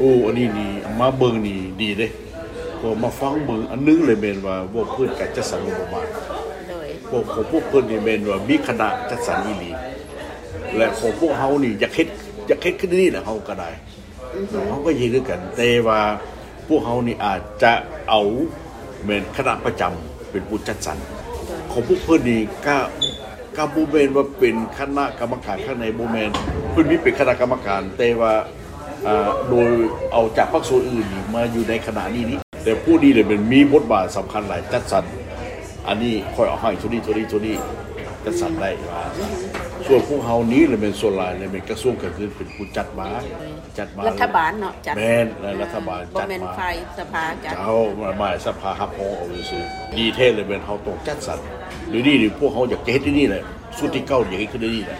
ໂອ້ ອັນນີ້ນີ້ມາເບິ່ງນີ້ດີເດ້ ເພາະມາຟັງເບິ່ງ ອັນໜຶ່ງເລີຍແມ່ນວ່າເວົ້າພື້ນການຈັດສັນງົບປະມານ ໂດຍ ເພາະຂອງພວກເພິ່ນນີ້ແມ່ນວ່າມີຄະນະຈັດສັນອີ່ຫຼີ ແລະຂອງພວກເຮົານີ້ຢາກເຮັດ ຢາກເຮັດຄືນີ້ແຫຼະ ເຮົາກໍໄດ້ ເຮົາກໍເຮັດຄືກັນ ແຕ່ວ່າພວກເຮົານີ້ອາດຈະເອົາແມ່ນຄະນະປະຈຳເປັນຜູ້ຈັດສັນ ຂອງພວກເພິ່ນນີ້ກະ ກະບໍ່ແມ່ນວ່າເປັນຄະນະກຳມະການຂ້າງໃນ ບໍ່ແມ່ນ ເພິ່ນມີເປັນຄະນະກຳມະການ ແຕ່ວ່າ ອ່າ ໂດຍເອົາຈາກພາກສ່ວນອື່ນນີ້ມາຢູ່ໃນຄະນະນີ້ນີ້ ແຕ່ຜູ້ນີ້ແຫຼະແມ່ນມີບົດບາດສຳຄັນຫຼາຍ ຈັດສັນ ອັນນີ້ຂ້ອຍເອົາໃຫ້ໂທນີ້ ໂທນີ້ ໂທນີ້ ຈັດສັນໄດ້ວ່າ ສ່ວນພວກເຮົານີ້ແຫຼະແມ່ນສ່ວນຫຼາຍແຫຼະແມ່ນກະຊວງການເງິນເປັນຜູ້ຈັດມາ ຈັດມາ ລັດຖະບານເນາະ ຈັດ ແມ່ນ ແລະລັດຖະບານ ບໍ່ແມ່ນ ຈັດມາ ຝ່າຍສະພາຈັດ ເຈົ້າ ມາ ມາສະພາຮັບຮອງເອົາຊື່ໆ ດີແທ້ແຫຼະແມ່ນເຮົາຕ້ອງຈັດສັນ ດຽວນີ້ນີ້ພວກເຮົາຢາກຈະເຮັດດຽວນີ້ແຫຼະ ຊຸດທີເກົ້າຢາກເຮັດຄືດຽວນີ້ແຫຼະ